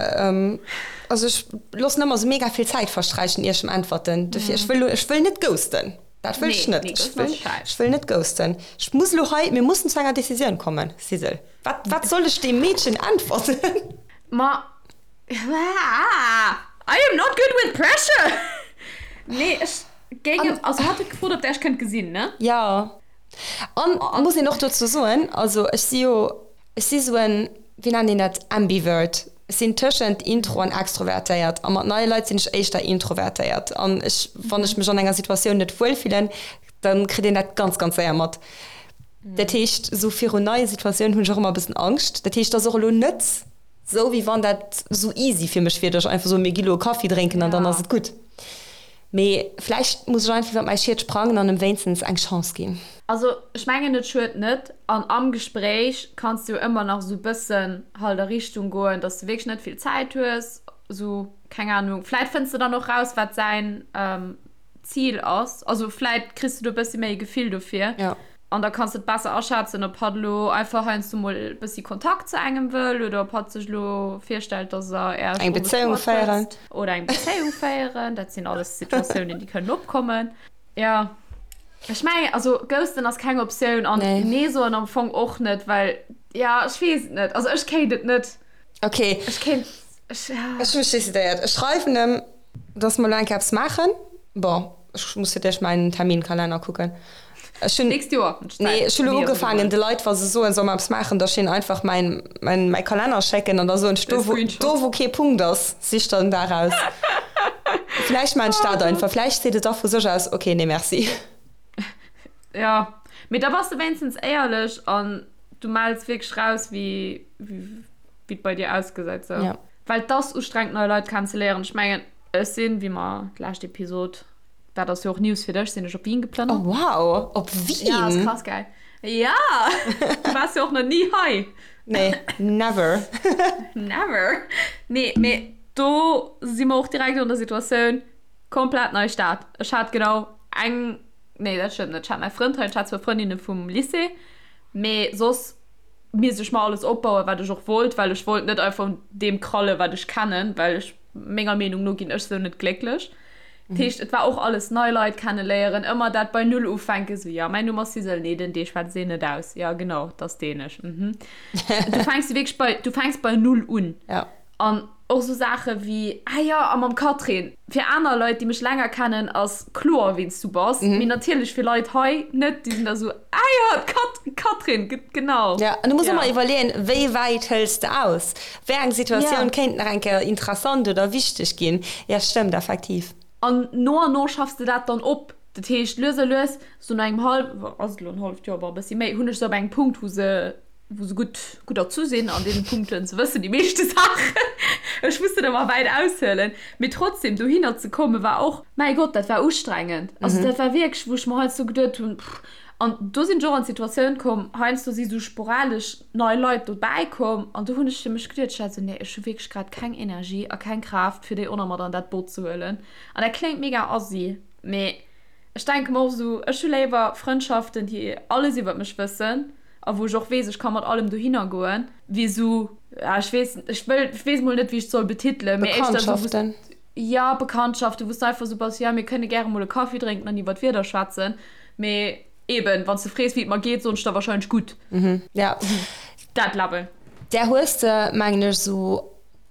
also ech loossen ëmmer esou mega vill Zäit versträichen ier ech em äntwerten, dofir ech wëll elo, ech wëll net ghosten, dat wëll ech net, ech wëll, ech wëll net ghosten. Ech muss elo hei, mir mussen zu enger Decisioun kommen, Sisel, wat, wat soll ech deem Meedchen äntwerten? Ma I am not good with pressure! Nee, ech géing em, also hat huet gefrot, ob der iech kënnt gesinn, ne? Jo. An muss een och dozou soen, also ech si jo, ech si sou en, wéi nennt een dat, Ambivert. Ech sinn tëschent intro an extrovertéiert a mat neie Leit sinn ech éischter introvertéiert. An ech, wann ech mech an enger Situatioun net wuel fillen, da kritt een dat ganz, ganz séier mat. Dat heescht, esou virun neie Situatiounen hunn ech och ëmmer e bëssen Angscht. Dat heescht, et ass och elo net Sou wéi wann dat sou easy fir mech wier, dass ech einfach soen, mir gi lo e Kaffi drénken an dann ass et gutt. Mee vläicht muss ech einfach iwwer mäi Schiet sprangen an em wéinstens eng Chance ginn. Also ech mengen et schued net an am Gespréich kanns de jo ëmmer nach sou bëssen halt a Richtung goen, dass de wierklech net vill Zäit hues, sou keng Ahnung, vläit fënns de dann och raus wat säin Zil ass, also vläit kriss de do bëssi méi e Gefill dofir. An da kanns de et besser aschätzen, ob hatt elo einfach heiansdo mol e bëssi Kontakt zu engem wëll oder ob hatt sech elo virstellt, dass er Äech Eng Bezéiung féieren. Oder eng Bezéiung féieren. Dat sinn alles Situatiounen, déi kënnen opkommen. Jo, ech mengen, also ghosten ass keng Optioun an Nee. Nee soen am Fong och net, well, jo, ech weess et net. Also ech kéint et net. Okay. Ech kéint, ech, ja. Ech hu mech decidéiert. Ech schreiwen em, dass mer elo eng Kéier eppes maachen. Bon, ech muss fir d'éischt mäin Terminkalenner kucken. Ech hunn, Nächst Joer. Nee, ech hunn elo ugefaangen, de Leit, wa se soen, soll mer eppes maachen, da ech einfach mäin, mäin, mäi Kalenner schécken an da soen ech, do wou, do wou kee Punkt ass, sich der den Dag aus. Vläicht maachen ech dat einfach. Vläicht seet et da vu sech aus, okay, nee merci. Jo, mee da bass de wéinstens éierlech an du mells wierklech raus, wéi, wéi et bei dir ausgesäit. Sou. Ja. Well et ass ustrengend, nei Leit kennenzeléieren. Ech mengen, ech sinn, wéi mer d'lescht Episod Dat ass jo och News fir dech, sinn ech op Wien geplënnert. Oh wow, op Wien? Ja, ass krass gell? Ja! Du waars jo och nach ni hei. Nee, never. Never. Nee, mee do si mer och direkt an der Situatioun, komplett nei Stad. Ech hat genau eng, nee dat stëmmt net, ech hat mäi Frënd hei, ech hat zwou Frëndinne vum Lycée, mee soss misst ech mer alles opbauen, wat ech och wollt, well ech wollt net einfach un deem krallen, wat ech kennen, well ech, menger Meenung no ginn ech sou net glécklech. Dat heescht, et war och alles nei Leit kenneléieren, ëmmer dat bei Null ufänken, sou, jo, mäin Numm ass Sisel, nee, den D schwätzt een net aus, jo, genau, 't ass dänesch, mhm. Du fänks wierklech bei, du fänks bei Null un. Ja. An och sou Saache wéi, ah jo, a mam Catherine. Fir aner Leit, déi mech länger kennen, ass kloer, wien s du bass, mee natierlech fir Leit hei net, déi sinn da sou, ah jo, d'Cat, d'Catherine, genau. Ja, an du muss ëmmer iwwerleeën, wéi wäit hëls de aus? Wéi eng Situatioun kéint nach eng Kéier interessant oder wichteg ginn? Ja, stëmmt effektiv. An no an no schaffs de dat dann op. Dat heescht, lues a lues, sou no engem hallw, ass et elo en halleft Joer, bon, e bëssi méi, hunn ech se op engem Punkt, wou se, wou se gutt, gutt erzu sinn an deene Punkten. Se wëssen déi meeschte Saachen. Ech muss net ëmmer wäit aushuelen. Mee trotzdem, dohinner ze kommen, war och, mäi Gott, dat war ustrengend. Also dat war wierklech, wou ech mer heiansdo geduet hunn, pff. An do sinn ech och an d'Situatioun komm, heiansdo si sou sporadesch nei Leit dobäi komm an do hunn ech fir mech geduet, ech war esou, nee, ech hu wierklech grad keng Energie a keng Kraaft, fir déi och nach mat an dat Boot ze huelen. An dat kléngt mega assi, mee ech denke mer och esou, ech hu léiwer Frëndschaften, déi alles iwwert mech wëssen a wou ech och weess, ech ka mat allem dohinner goen, wéi esou, ja, ech weess, ech wëll, ech weess mol net, wéi ech et soll betitelen, mee éischter esou, wou s. Bekanntschaften. Jo, Bekanntschaften, wou s du einfach esou bass, jo, mir kënne gäre mol e Kaffi drénken an iwwer d'Wieder schwätzen. Mee eben, wann s de frees, wéi et mer geet, soen ech der wahrscheinlech gutt. Mhm, ja. Dat Level. Där hues de, mengen ech, esou.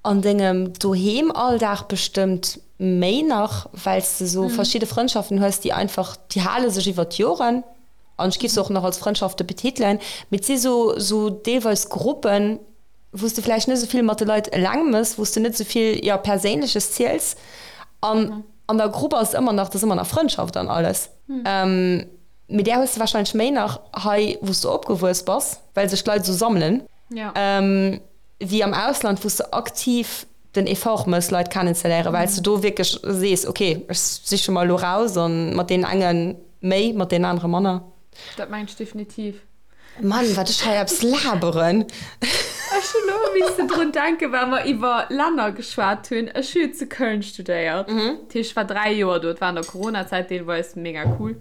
An dengem Doheem-Alldag bestëmmt méi nach, well s de sou verschidde Frëndschaften hues, déi einfach, déi hale sech iwwer d'Joren an ech giff se och nach als Frëndschafte betitelen, mee et si sou, sou deelweis Gruppen, wou s de vläicht net esou vill mat de Leit eleng mëss, wou s de net esou vill, jo, Perséinleches ziels an an der Grupp ass et ëmmer nach, et ass ëmmer nach Frëndschaft an alles. Mee där hues de warscheinlech méi nach hei, wou s de opgewuess bass, well sech d'Leit esou sammelen. Wéi am Ausland, wou s de aktiv den Effort mëss, Leit kennenzeléieren, well s de do wierklech sees, ok, ech siche mer elo raus a mat deenen enge méi, mat deenen anere manner. Dat mengen ech definitiv. Mann, wat ech hei eppes laberen! Ech hunn elo missen drun denken, well mer iwwer Länner geschwat hunn. Ech hu jo zu Köln studéiert. Dat heescht, ech war 3 Joer do. Et war an der Coronazäit deelweis, mega cool.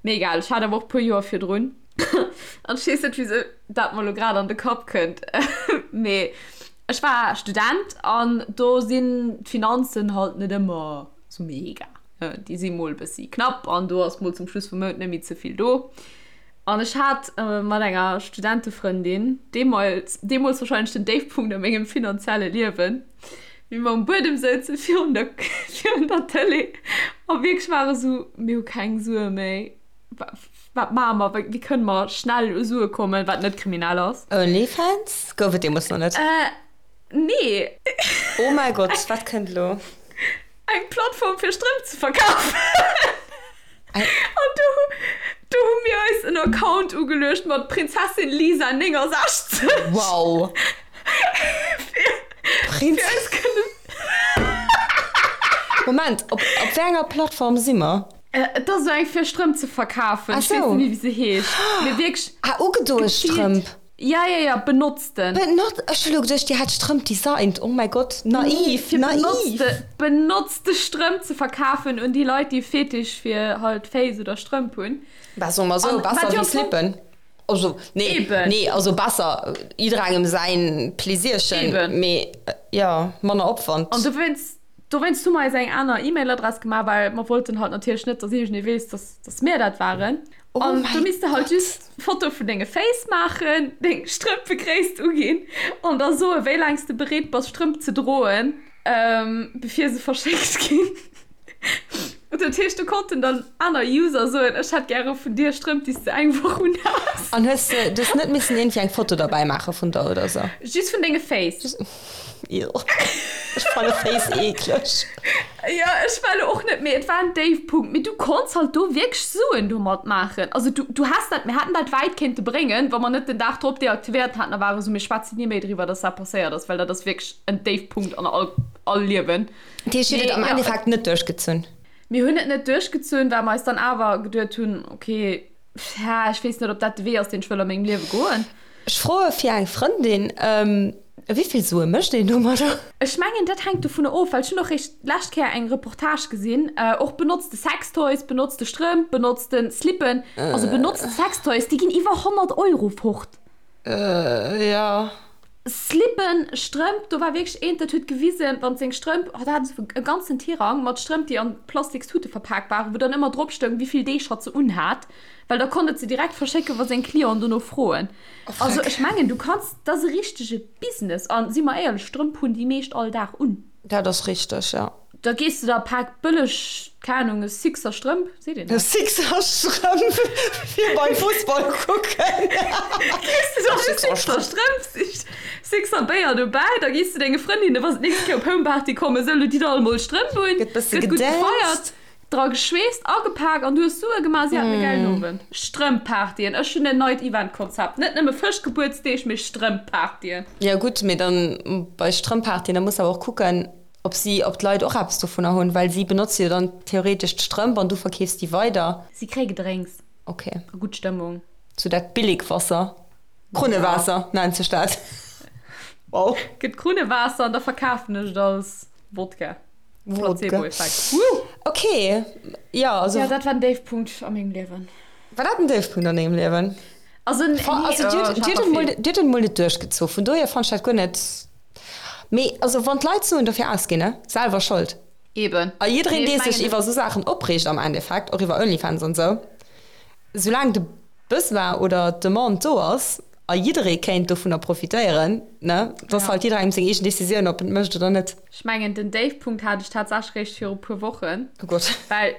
Mee egal, ech hat awer och e puer Joer virdrun. An ech weess net, wisou dat mer elo grad an de Kapp kënnt, mee ech war Student an do sinn d'Finanzen halt net ëmmer sou mega. Déi si mol e bëssi knapp an do ass mol zum Schluss vum Mount net méi ze vill do. An ech hat mat enger Studentefrëndin deemools, deemools warscheinlech den Déifpunkt a mengem finanzielle Liewen, wéi mer um Buedem souze virun der, virun der Tëlee a wierklech ware sou, mir hu keng Sue méi. Wat maache mer? Wéi kënne mer schnell u Sue kommen, wat net kriminell ass? Onlyfans? Gouf et deemools nach net? Nee. Oh mäi Gott, wat kënnt elo? Eng Plattform fir Strëmp ze verkafen. An do, do hu mir eis en Account ugeluecht mat Prinzessin Lisa 69. Wow. Fir, fir eis kënnen. Moment, op, op wéi enger Plattform si mer? Et ass esou eng fir Strëmp ze verkafen. Ech weess net méi wéi se heescht. Mee wierklech. Ah, ugedoe Strëmp. Ja, ja, ja, benotzten. Benot, ech hu lo geduecht dir hätt Strëmp designt. Oh mäi Gott, naiv, Fir naiv. benotzte, benotzte Strëmp ze verkafen un déi Leit, déi e Fetisch fir halt Féiss oder Strëmp hunn. Bah, soe mer esou, An wat besser jo wéi am Fong. Slippen. Also, nee, Eben. nee, also besser, jidderengem säin Pläsierchen, Eben. mee jo, manner Opwand. An dowéinst Dowéinst hu mer eis eng aner E-Mail-Adress gemaach, well mer wollten halt natierlech net, dass iergendee weess, dass, dass mir dat waren. Oh An do mäi misst de halt Gott. just Foto vun denge Féiss maachen, deng Strëmpegréisst uginn an da soen, wéi laang s de bereet bass, Strëmp ze droen, bevir se verschéckt ginn. Dat heescht, do konnten dann aner User soen, ech hätt gäre vun dir Strëmp, déi s de eng Woch unhas. An hues de, du hues net missen iergendwéi eng Foto derbäi maache vun der oder sou? Just vun denge Féiss. Ech fanne Féiss eekleg. Jo, ech war elo och net, mee et war en Déifpunkt. Mee du konns halt do wierklech Suen domat maachen. Also du, du häss dat, mir hätten dat wäit kéinte bréngen, wa mer net den Dag drop deaktivéiert hätten a ware sou, mir schwätzen ni méi driwwer, dass dat passéiert ass, well dat ass wierklech en Déifpunkt an all, all Liewen. Dat heescht, dir hutt et am Endeffekt net duerchgezunn? Mir hunn et net duerchgezunn, well mer eis dann awer geduet hunn, okay, ech weess net, ob dat de Wee ass, deen ech wëll a mengem Liewe goen. Ech froe fir eng Frëndin, Wéi vill Sue mécht een domadder? Ech mengen, dat hänkt dovunner of, well ech hunn och réischt d'lescht Kéier eng Reportage gesinn, och benotzte Sextoys, benotzte Strëmp, benotzte Slippen, also benotzte Sextoys, déi ginn iwwer 100 Euro fort. Jo. Slippen, Strëmp, do war wierklech eent, dat huet gewisen, wann seng Strëmp, oh, dat hat esou e ganzen Tirang mat Strëmp, déi an Plastikstute verpak waren, wou dann ëmmer drop stoung, wéi vill Deeg hatt se unhat, well da konnt et se direkt verschécken, wa seng Clienten dono froen. Also ech mengen, du kanns, dat ass e richtege Business. A si mer éierlech, Strëmp hunn déi meescht all Dag un. Dat ass richteg, jo. Da gees de der e Pak bëlleg, keng Ahnung, e Sixer Strëmp, seet een dat? E Sixer Strëmp fir beim Fussball kucken. Gees de der e Sixer Strëmp, Sixer Béier dobäi, da gees de denge Frëndinne, wa se d'nächst Kéier op Homeparty kommen, sou, lo ditt all emol Strëmp un, Gëtt bësse gëtt gutt gefeiert, gedanzt. dra geschweesst, agepak an du hues Sue gemaach, si haten e gäilen Owend. Strëmp-Partyen, ech hunn en neit Event-Konzept, net nëmme Fëschgebuertsdeeg, mee Strëmp-Partyen. Jo gutt, mee dann bei Strëmp-Partyen, da muss de awer och kucken, Ob si, ob d'Leit och eppes dovunner hunn, well si benotze jo dann theoretesch d'Strëmp an du verkeefs déi weider. Si kréie Gedrénks. Ok. A gutt Stëmmung. Sou dat Billigwasser. Krunnewaasser nennt sech dat. Wow. Gëtt Krunnewaasser an da verkafen ech et als Wodka. Wodka. Placebo-Effekt. Woo! Ok, jo, also. Jo, dat war den Déifpunkt a mengem Liewen. War dat den Déifpunkt an dengem Liewen? Also, nee, Also, oh, dir ech hutt, hat dir nach hutt et mol, vill. dir hutt et mol net duerchgezu. Vun dohier fannt ech dat guer net. Mee also wann d'Leit Suen dofir ausginn, ne? Selwer Schold. Eben. A jiddereen Nee, dee ech sech mengen. iwwer esou Saachen opreegt am Endeffekt, och iwwer Onlyfans an esou, soulaang de Besoin oder d'Demande do ass. A jidderee kéint dovunner profitéieren, ne? Et ass halt jidderengem seng eegen Decisioun, ob en et mécht oder net. Ech mengen, den Déifpunkt hat ech tatsächlech réischt viru puer Wochen. Oh Gott. Well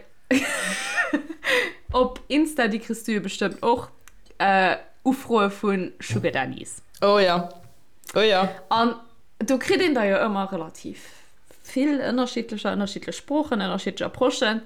op Insta, déi kriss du jo bestëmmt och, Ufroe vu Sugar Daddies. Oh jo, oh jo. An do kritt een der jo ëmmer relativ vill, ënnerschiddlecher, ënnerschiddlech Sproochen, ënnerschiddlech Approchen.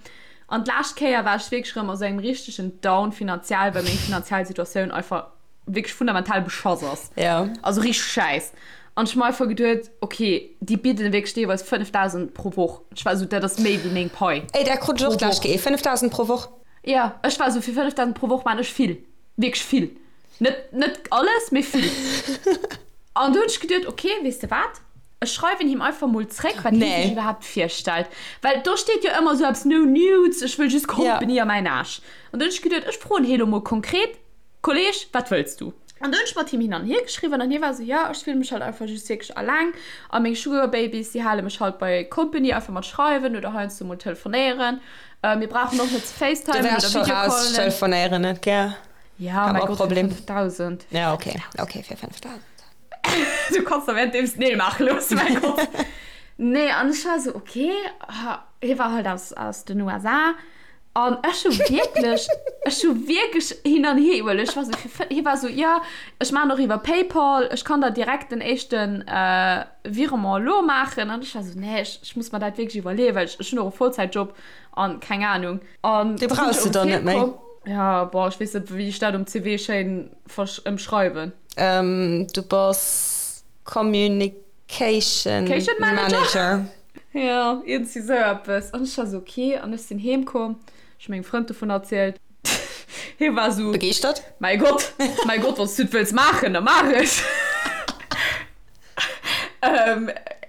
An d'lescht Kéier war ech wierklech erëm a sou engem richtegen Down finanziell, well meng finanziell Situatioun einfach wierklech fundamental beschass ass. Ja. Also richteg schäiss. An ech hu mer einfach geduet, okay, déi bidden wierklech deelweis 5.000 pro Woch. Ech war esou, dat ass méi wéi meng Pai. Ey, dat krut ech och d'lescht Kéier, 5.000 pro Woch. Ja, ech war esou, fir 5.000 pro Woch maan ech vill. Wierklech vill. Net, net alles, mee vill. An du hunn ech geduet, okay, weess de wat? Ech schreiwen him einfach mol zréck, wat hie sech iwwerhaapt virstellt. Well do steet jo ëmmer esou eppes, no nudes, ech wëll just Company a mäin Aarsch. An du hunn ech geduet, ech froen hie lo mol konkret, Kolleg, wat wëlls du? An du hunn ech mat him hin an hier geschriwwen an hie war esou, jo, ech fille mech halt einfach just wierklech alleng a meng Sugar Babies, déi hale mech halt bei Company, einfach mat schreiwen oder heiansdo mol telefonéieren. Mir brauchen och net ze Du facetimen wärs oder scho raus, ech Videocallen. telefonéieren net gär. Ja, Hat mäi mer Gott, fir Problem. 5.000. Ja, okay, okay, fir 5.000. Du kanns der währenddeems d'Neel maache loossen, mäi Gott. Nee, an ech war esou, okay, hie war halt aus, aus den USA. An ech hu wierklech, ech hu wierklech hin an hier iwwerluecht. Ech war esou, fir, hie war esou, jo, ech maachen och iwwer PayPal, ech kann der direkt den éischten Virement elo maachen. An ech war esou, nee, ech, ech muss mer dat wierklech iwwerleeën, well ech, ech hunn och e Vollzäitjob an keng Anung. An Dee da sinn brauchs ech de erëm dann net méi. heemkomm. Ja, boah, ech weess net, wéi ech dat um CV schéin versch, ëmschreiwen. Du bass Communication Cation Manager? Manager. Jo, iergendwéi sou eppes. An ech war sou, ok. An ech sinn heem komm, ech hu mengem Frënd dovun erzielt. Hie war sou, Begeeschtert? Mäi Gott, mäi Gott, wann s du et wëlls maachen, da maach et.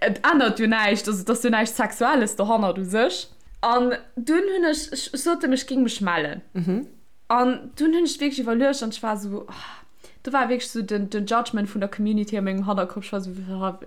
Et ännert jo näischt, also et ass jo näischt Sexuelles dohannert u sech. An dunn hunn ech, ech sot em, ech géing mech mellen. An dunn hunn ech wierklech iwwerluecht an ech war sou, do war wierklech sou den, den Judgment vun der Community a mengem Hannerkopp. Ech war sou,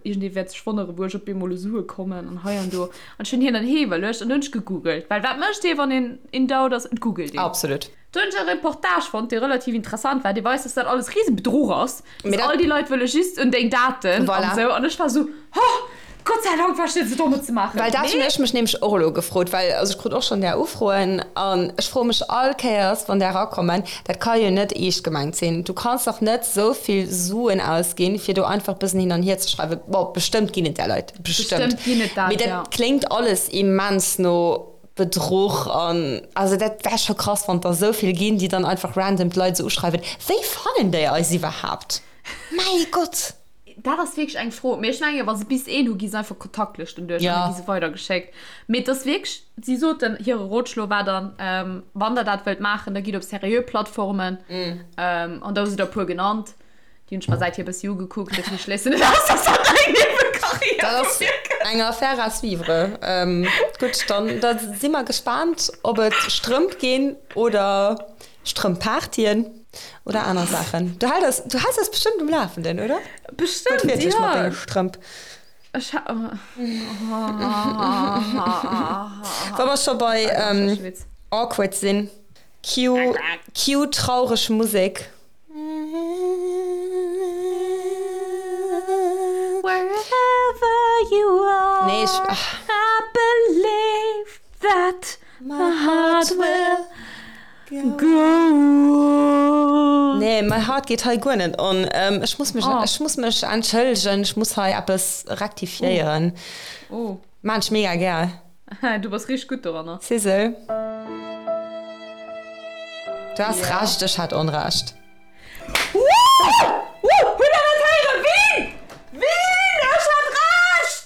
iergendee wäert sech wonneren, wou ech op eemol u Sue kommen an hei an do. An ech hunn hin an hier iwwerluecht an dunn hunn ech gegoogelt. Well wat mécht ee, wann een in doubt ass? Et googelt een. Absolut. Do hunn ech e Reportage fonnt, dee relativ interessant war, dee weist, dass dat alles Riesebedruch ass. Mee Dass dat. all déi Leit wëlle just un deng Daten an Voilà. esou. An ech war sou, oh, Gott sei Dank war ech net esou domm et ze maachen. Well dat hunn Mee. ech mech nämlech och elo gefrot, well also ech krut och schonn där Ufroen an ech froe mech all Kéiers, wann där erakommen, dat ka jo net eescht gemengt sinn. Du kanns dach net esou vill Suen ausginn, fir do einfach bëssen hin an hier ze schreiwen. Bon, bestëmmt ginn et där Leit, bestëmmt. Bestëmmt ginn et dat, Mee dat ja. kléngt alles immens no Bedruch an also dat wär scho krass, wann et der esou vill ginn, déi dann einfach random d'Leit esou uschreiwen. Wéi fannen déi eis iwwerhaapt? Mäi Gott! Dat ass wierklech eng Fro. Mee ech mengen, wa se bis een hu, gi se einfach Kontaktlëschten duerch an da gi se weidergeschéckt. Mee et ass wierklech, si soten, hire Rotschlo war dann, wann der dat wëllt maachen, da gitt op seriö Plattformen. An da hu se der e puer genannt. Déi hunn ech mer säithier e bëssi ugekuckt. Dofir schléissen net aus, dass dat eng Niewekarriär Dat ass vu mir gëtt. eng Affaire à suivre. Gutt, dann da si mer gespaant, ob et Strëmp ginn oder Strëmppartyen oder aner Saachen. Du hält eis, du häls eis bestëmmt um Lafenden, oder? Bestëmmt, Wuertwiertlech mat jo. denge Strëmp. Ech ha. Wa mer scho bei awkward sinn, cue, cue traureg Musek. Wherever you are, Nee, ech, ach. I believe that my heart will go on. Nee, my heart geet hei guer net on. Ech muss mech, Oh. ech muss mech entschëllegen, ech muss hei eppes rektifiéieren. Oh. Maan ech mega gär. Du bass richteg gutt doranner. Sissel. Du has Ja. Recht, ech hat Onrecht. Woo! Woo! Hutt der dat héieren? Ween? Ween? Ech hat Recht!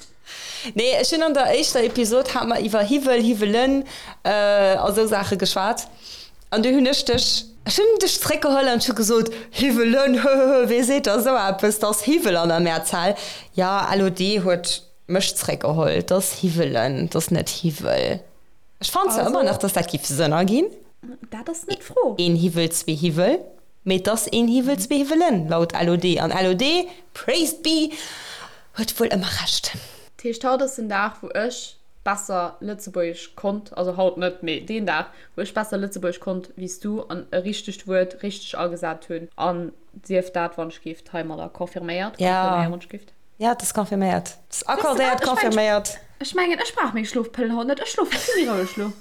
Nee, ech hunn an der éischter Episod hat mer iwwer Hiwwel, Hiwwelen a sou Saache geschwat. An du hunn ech dech, ech hunn dech zréckgeholl an ech hu gesot, Hiwwelen, höhöhö, wee seet da sou eppes, 't ass Hiwwel an der Mehrzahl. Ja, LOD huet mech zréckgeholl, 't ass Hiwwelen, 't ass net Hiwwel. Ech fannen zwar ëmmer nach, dass dat giff Sënn erginn. Dat ass net d'Fro. Een Hiwwel, zwee Hiwwel. Mee 't ass een Hiwwel, zwee Hiwwelen, laut LOD. An LOD, praised be, huet wuel ëmmer Recht. Dat heescht, haut ass den Dag, wou ech. besser Lëtzebuergesch konnt, also haut net, mee deen Dag, wou ech besser Lëtzebuergesch konnt wéi s du an e richtegt Wuert richteg agesat hunn. An sief dat wann ech gift heimadder confirméiert. Ja. Wann ech gift. Ja, et ass confirméiert. Et ass accordéiert, confirméiert. Ech mengen, ech brauch meng Schlofpëllen haut net. Ech schlofe vill méi roueg lo.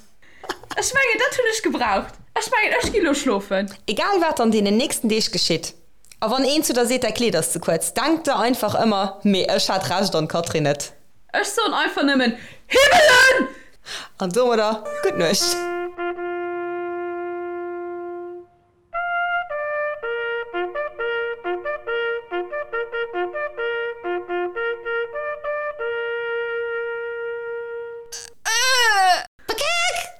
Ech mengen, dat hunn ech gebraucht. Ech mengen, ech gi lo schlofen. Egal wat an deenen nächsten Deeg geschitt, a wann een zu der seet, däi Kleed ass ze kuerz, denk der einfach ëmmer, mee ech hat Recht an d'Catherine net. Ech soen einfach nëmmen, Himmelen! An domadder gutt Nuecht.